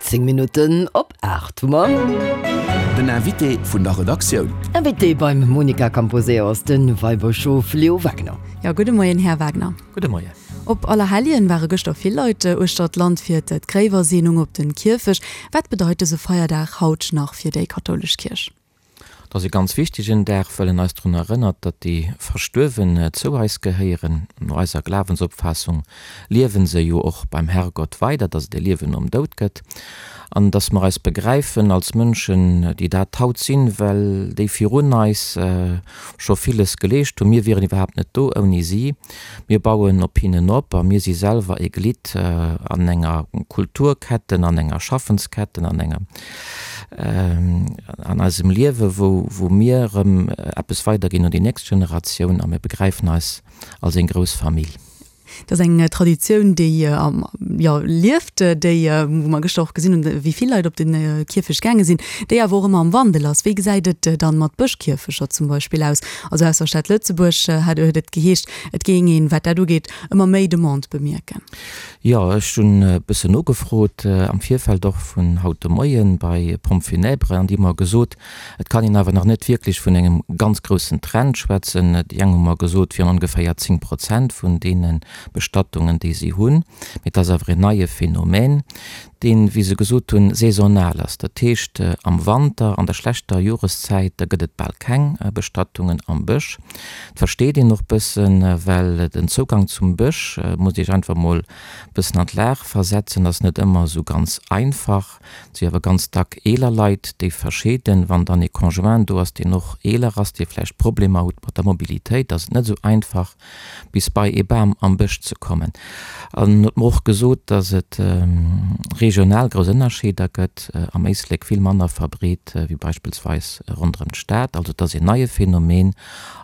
10 Minutten op 8 hu mer. Den Invité vun der Redaktioun. Invité beim Monica Camposeo ass de Weibëschof Leo Wagner. Jo, gudde Moien, Här Wagner. Gudde Moien. Op Allerhelljen ware gëschter vill Leit uechter d'Land fir d'Gréiwerseenung op den Kierfecht. Wat bedeit dëse Feierdag haut nach fir déi kathoulesch Kierch? Et ass e ganz wichtegen Dag, well en eis drun erënnert, datt déi Verstuerwen zou eis gehéieren. No eiser Glawensopfaassung liewen se jo och beim Herrgott weider, datt et e Liewen nom Doud gëtt an datt mer eis begräifen als Mënschen, déi dat haut sinn, well déi virun eis scho villes geleescht hunn. Mir wieren iwwerhaapt net do ouni si. Mir bauen op hinnen op a mir si selwer e Glidd an enger Kulturketten, an enger Schaffensketten, an enger, an eisem Liewe wou, wou mir erëm eppes weiderginn un déi nächst Generatioun a mir begräifen eis als eng grouss Famill. Dat ass eng Traditioun, déi, jo, lieft, déi, wou mer gëschter och gesinn hunn, wéi vill Leit op de Kierfecht gaange sinn, déi awer och ëmmer am Wandel ass. Wéi gesäit et dann mat Bëschkierfecher zum Beispill aus? Also aus der Stad Lëtzebuerg hat huet et geheescht, et géing een, wat dat ugeet, ëmmer méi Demande bemierken. Jo, ech hunn e bëssen nogefrot am Virfeld och vun haut de Moien bei Pompes funèbres an déi hu mer gesot, et kann een awer nach net wierklech vun engem ganz groussen Trend schwätzen. Déi eng hu mer gesot, et wieren ongeféier 10 Prozent vun deene Bestattungen, déi si hunn. Mee et ass awer en neie Phänomen, deen, wéi se gesot hunn, saisonal ass. Dat heescht, am Wanter, an der schlechter Joreszäit, da gëtt et bal keng Bestattungen am Bësch. Dat versteet een och bëssen, well den Zougang zum Bësch, musst Iech einfach mol bëssen an d'Lag versetzen, ass net ëmmer esou ganz einfach. Et si awer ganz dack eeler Leit, déi verscheeden. Wann dann ee Conjoint do ass, deen och eeler ass, dee vläicht Problemer huet mat der Mobilitéit, ass et net esou einfach, bis bei ee Bam am Bësch ze kommen. An en huet mer och gesot, datt et regional grouss Ënnerscheeder gëtt, am Éislek vill manner verbreet wéi beispillsweis ronderëm d'Stad. Also et ass een neie Phänomen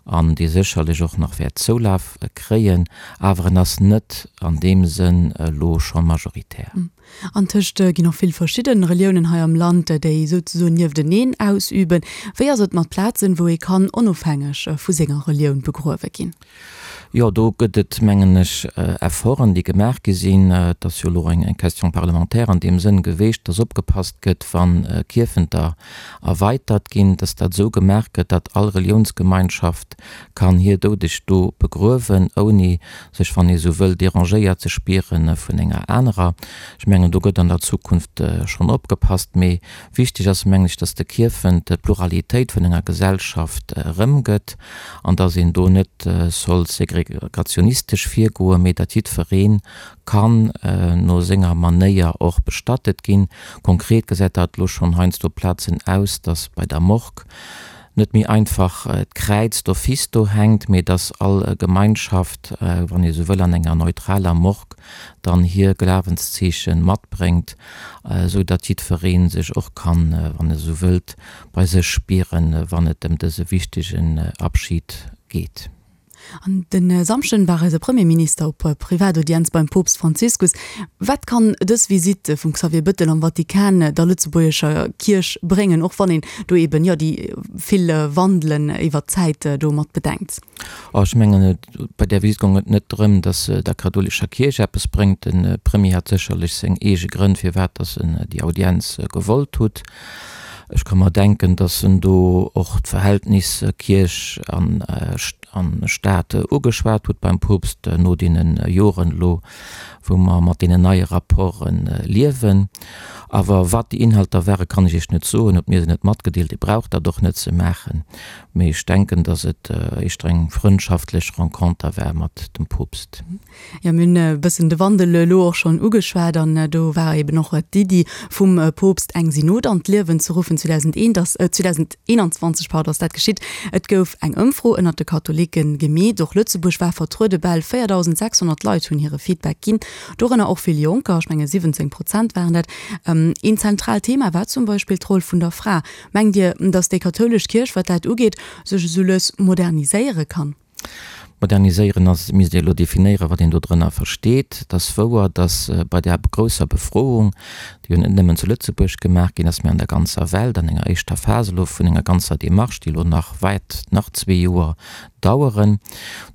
an dee sécherlech och nach wäert Zoulaf kréien, awer en ass net an deem Sënn elo scho majoritär. Antëscht ginn och vill verschidden Reliounen hei am Land, déi souzesoen niefteneen ausüben. Wéi ass et mat Plazen, wou ee kann onofhängeg vu senger Relioun begruewe ginn? Jo, do gëtt et, mengen ech, Efforten, déi gemaach gi sinn. Et ass jo elo eng Question parlementaire an deem Sënn geweecht, dass opgepasst gëtt, wa Kierfenter erweitert ginn, dass dat esou gemaach gëtt, datt all Reliounsgemeinschaft kann hir Doudeg do begruewen, ouni sech, wann ee sou wëll, dérangéiert ze spiere vun enger anerer. Ech mengen, do gëtt an der Zukunft schonn opgepasst. Mee wichteg ass, mengen ech, dass de Kierfent d'Pluralitéit vun enger Gesellschaft erëmgëtt an dass een do net soll segregationistesch virgoen, mee datt jiddweree kann no senger Manéier och bestattet ginn. Konkret gesäit dat elo schonn heiansdo op Plazen aus, dass bei der Morgue net méi einfach d'Kräiz d'office do hänkt, mee dass all Gemeinschaft, wann ee sou wëll, an enger neutraler Morgue dann hir Glawenszeeche matbréngt, esou datt jiddweree sech och kann, wann e sou wëllt, bei sech spieren, wann et ëm dëse wichtegen Abschid geet. An de Samschden war eise Premierminister op Privataudienz beim Poopst Franziskus. Wat kann dës Visitt vum Xavier Bëttel am Vatikan der lëtzebuergescher Kierch bréngen, och wann een do eben, jo, déi vill Wandelen iwwert d'Zäit do mat bedenkt? Oh, ech mengen, bei där Visitt goung et net drëm, datt se der kathoulescher Kierch eppes bréngt. De Premier hat sécherlech seng eege Grënn, firwat datt en déi Audienz gewollt hutt. Ech ka mer denken, datt en do och d'Verhältnis Kierch an Staat ugeschwat huet beim Poopst no deene Joren elo, wou mer mat deenen neie Rapporte liewen. Awer wat déi Inhalter ware kann ech Iech net soen, huet mir se net matgedeelt. Dir braucht dat och net ze maachen. Mee ech denken, datt et éischter eng frëndschaftlech Renconter war mat dem Poopst. Jo, mir hunn e bëssen de Wandel elo och schonn ugeschwat an do war eben och d'Iddi vum Poopst eng Synod an d'Liewen ze ruffen. 2001 ass, 2021, pardon, ass dat geschitt. Et gouf eng Ëmfro ënnert de Katholike gemeet. Och Lëtzebuerg war vertruede, bal 4.600 Leit hunn hire Feedback ginn, dorënner och vill Jonker, ech menge 17 Prozent waren dat. Een zentraalt Thema war zum Beispill d'Roll vun der Fra. Mengt Dir, datt déi kathoulesch Kierch, wat dat ugeet, sech esou lues moderniséiere kann? Moderniséieren ass, misst ee elo definéieren, wat een do drënner versteet. Et ass wouer, datt bei där grousser Befroung, déi jo net nëmmen zu Lëtzebuerg gemaach ginn ass, mä an der ganzer Welt, an enger éischter Phas elo vun enger ganzer Démarche, déi elo nach wäert nach zwee Joer daueren,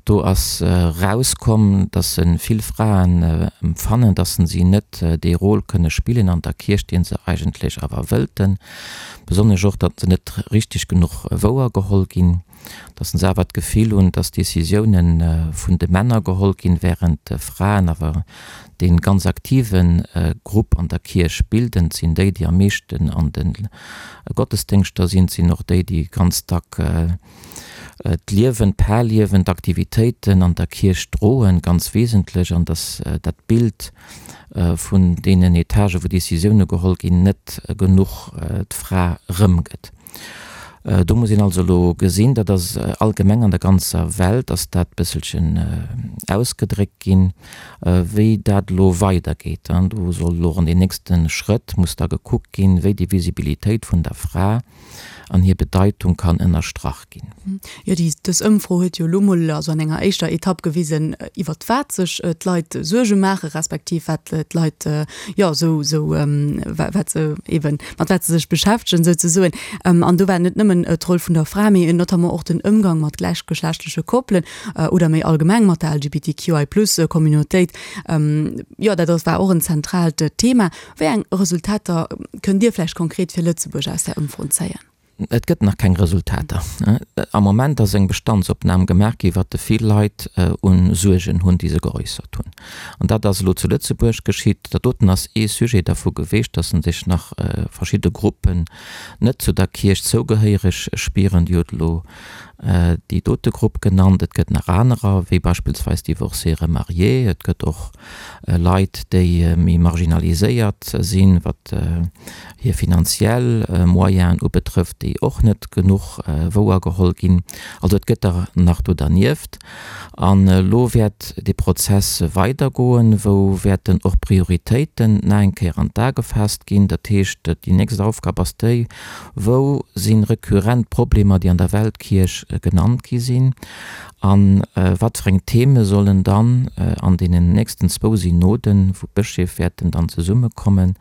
do ass erauskomm, datt vill Fraen empfannen, datt si net dee Rôle kënne spillen an der Kierch, dee se eigentlech awer wëllten, besonnesch och, datt se net richteg genuch wouergeholl ginn. Datt se awer d'Gefill hunn, datt Decisiounen vun de Männer geholl ginn, während d'Fraen awer dee ganz aktive Grupp an der Kierch bilden. Et sinn déi, déi am meeschten an de Gottesdéngschter sinn. Et sinn och déi, déi ganz dack d'Liewen, d'Parliewen, d'Aktivitéiten an der Kierch droen, ganz wesentlech. An datt dat Bild vun deenen Etagen, wou Decisioune geholl ginn, net genuch d'Fra erëmgëtt. Do muss een also elo gesinn, dat ass allgemeng an der ganzer Welt ass dat bësselchen ausgedréckt ginn, wéi dat elo weidergeet. Do soll elo an den nächste Schrëtt muss da gekuckt ginn, wéi déi Visibilitéit vun der Fra an hir Bedeitung kann ënnerstrach ginn. Jo, déi, dës Ëmfro huet jo elo mol, also an enger éischter Etapp gewisen, iwwert wat sech d'Leit Suerge maachen, respektiv wat d'Leit, jo, esou, esou, wat se eeben, mat wat se sech beschäftegen souzesoen. An do war net nëmmen d'Roll vun der Fra, mee notamment och den Ëmgang mat gläichgeschlechtleche Koppelen oder méi allgemeng mat der LGBTQI-Plus-Communautéit. Jo, dat ass, war och en zentraalt Thema. Wéi eng Resultater kënnt Dir vläicht konkret fir Lëtzebuerg aus där Ëmfro zéien? Et gëtt nach keng Resultater. Am Moment ass eng Bestandsopnam gemaach gi wat de vill Leit u Suergen hunn, déi se geäussert hunn. An dat ass elo zu Lëtzebuerg geschitt. Dat doten ass ee Sujet dervu geweecht, datt sech nach verschidde Gruppen net zu der Kierch zougehéiereg spieren. Dir hutt elo déi dote Grupp genannt. Et gëtt nach anerer, wéi beispillsweis Divorcés remariés. Et gëtt och Leit, déi méi marginaliséiert sinn, wat hir finanziell Moyenen ubetrëfft, déi och net genuch wouergeholl ginn. Also et gëtt der nach do dernieft. An elo wäert dee Prozess weidergoen, wou wäerten och Prioritéiten nach eng Kéier an d'A gefaasst ginn. Dat heescht, déi nächst Aufgab ass déi, Wou si rekurrent Problemer, déi an der Weltkierch genannt gi sinn? A wat fir eng Theme sollen dann an deenen nächsten zwou Synoden, wou d'Bëscheef wäerten dann zesummekommen,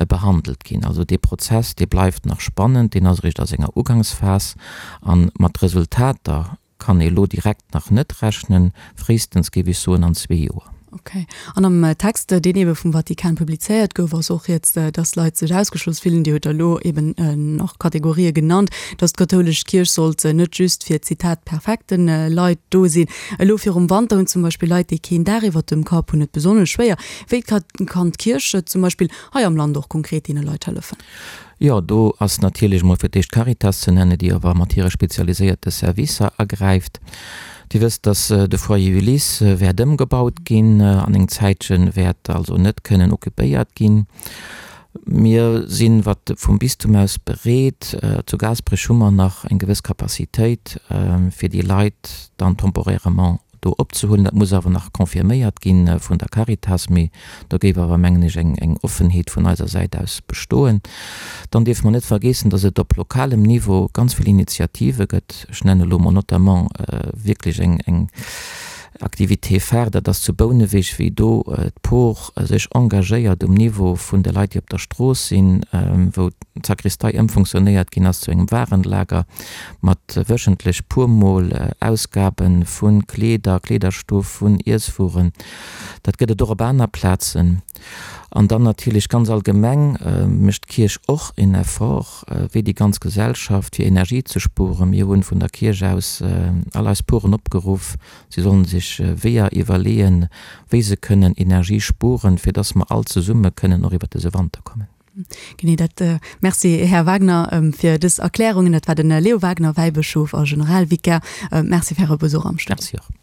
behandelt ginn? Also dee Prozess, dee bleift nach spannend, deen ass eréischt a senger Ugangsphas. A mat Resultater kann ee lo direkt nach net rechnen, fréistens géif ech soen an zwee Joer. Ok. An am Text, deen eebe vum Vatikan publizéiert gouf, ass och rieds, dass Leit sech ausgeschloss fillen. Dir hutt der elo eeben nach Kategorië genannt, dass d'kathoulesch Kierch sollt net just fir, Zitat, perfekte Leit do sinn. Elo virum Wanter hunn zum Beispill Leit, déi keen Daach iwwert dem Kapp hunn, et besonnesch schwéier. Wéi kann d'Kierch zum Beispill hei am Land och konkret deene Leit hëllefen? Jo, do ass natierlech emol fir d'éischt d'Caritas ze nennen, déi awer mat hire spezialiséierte Servicer agräift. Dir wësst, dass de Foyer Ulysse wäert ëmgebaut ginn, an eng Zäitche wäert also net kënnen occupéiert ginn. Mir sinn, wat vum Bistum aus, bereet, zu Gaasperech hu mer nach eng gewëss Capacitéit, fir déi Leit dann temporairement do opzehuelen. Dat muss awer nach confirméiert gi vun der Caritas, mee do géif awer, mengen ech, eng Offenheet vun eiser Säit aus bestoen. Dann dierfe mer net vergeessen, dass et op lokalem Niveau ganz vill Initiative gëtt. Ech nennen elo mol notamment wierklech eng Activité phare, dat ass zu Bouneweg, wéi do d'Por sech engagéiert um Niveau vun de Leit, déi op der Strooss sinn, wou d'Sakristei ëmfunktionéiert ginn ass zu engem Warenlager. mat wöchentlech puer mol Ausgaben vun Kleeder, Kleederstoff, vun Iesswueren. Dat gëtt et och op aner Plazen. An dann natierlech ganz allgemeng mécht d'Kierch och en Effort, wéi déi ganz Gesellschaft, fir Energie ze spueren. Mir hunn vun der Kierch aus all eis Poren opgeruff, si sollen sech Weeër iwwerleeën, wéi se kënnen Energie spuren, fir dass mer all zesumme kënnen och iwwert dëse Wanter kommen. Genee dat. Merci, Här Wagner, fir dës Erklärungen. Dat war de Leo Wagner, Wäibëschof a Generalvikar. Merci fir Äre Besuch am Studio. Merci och.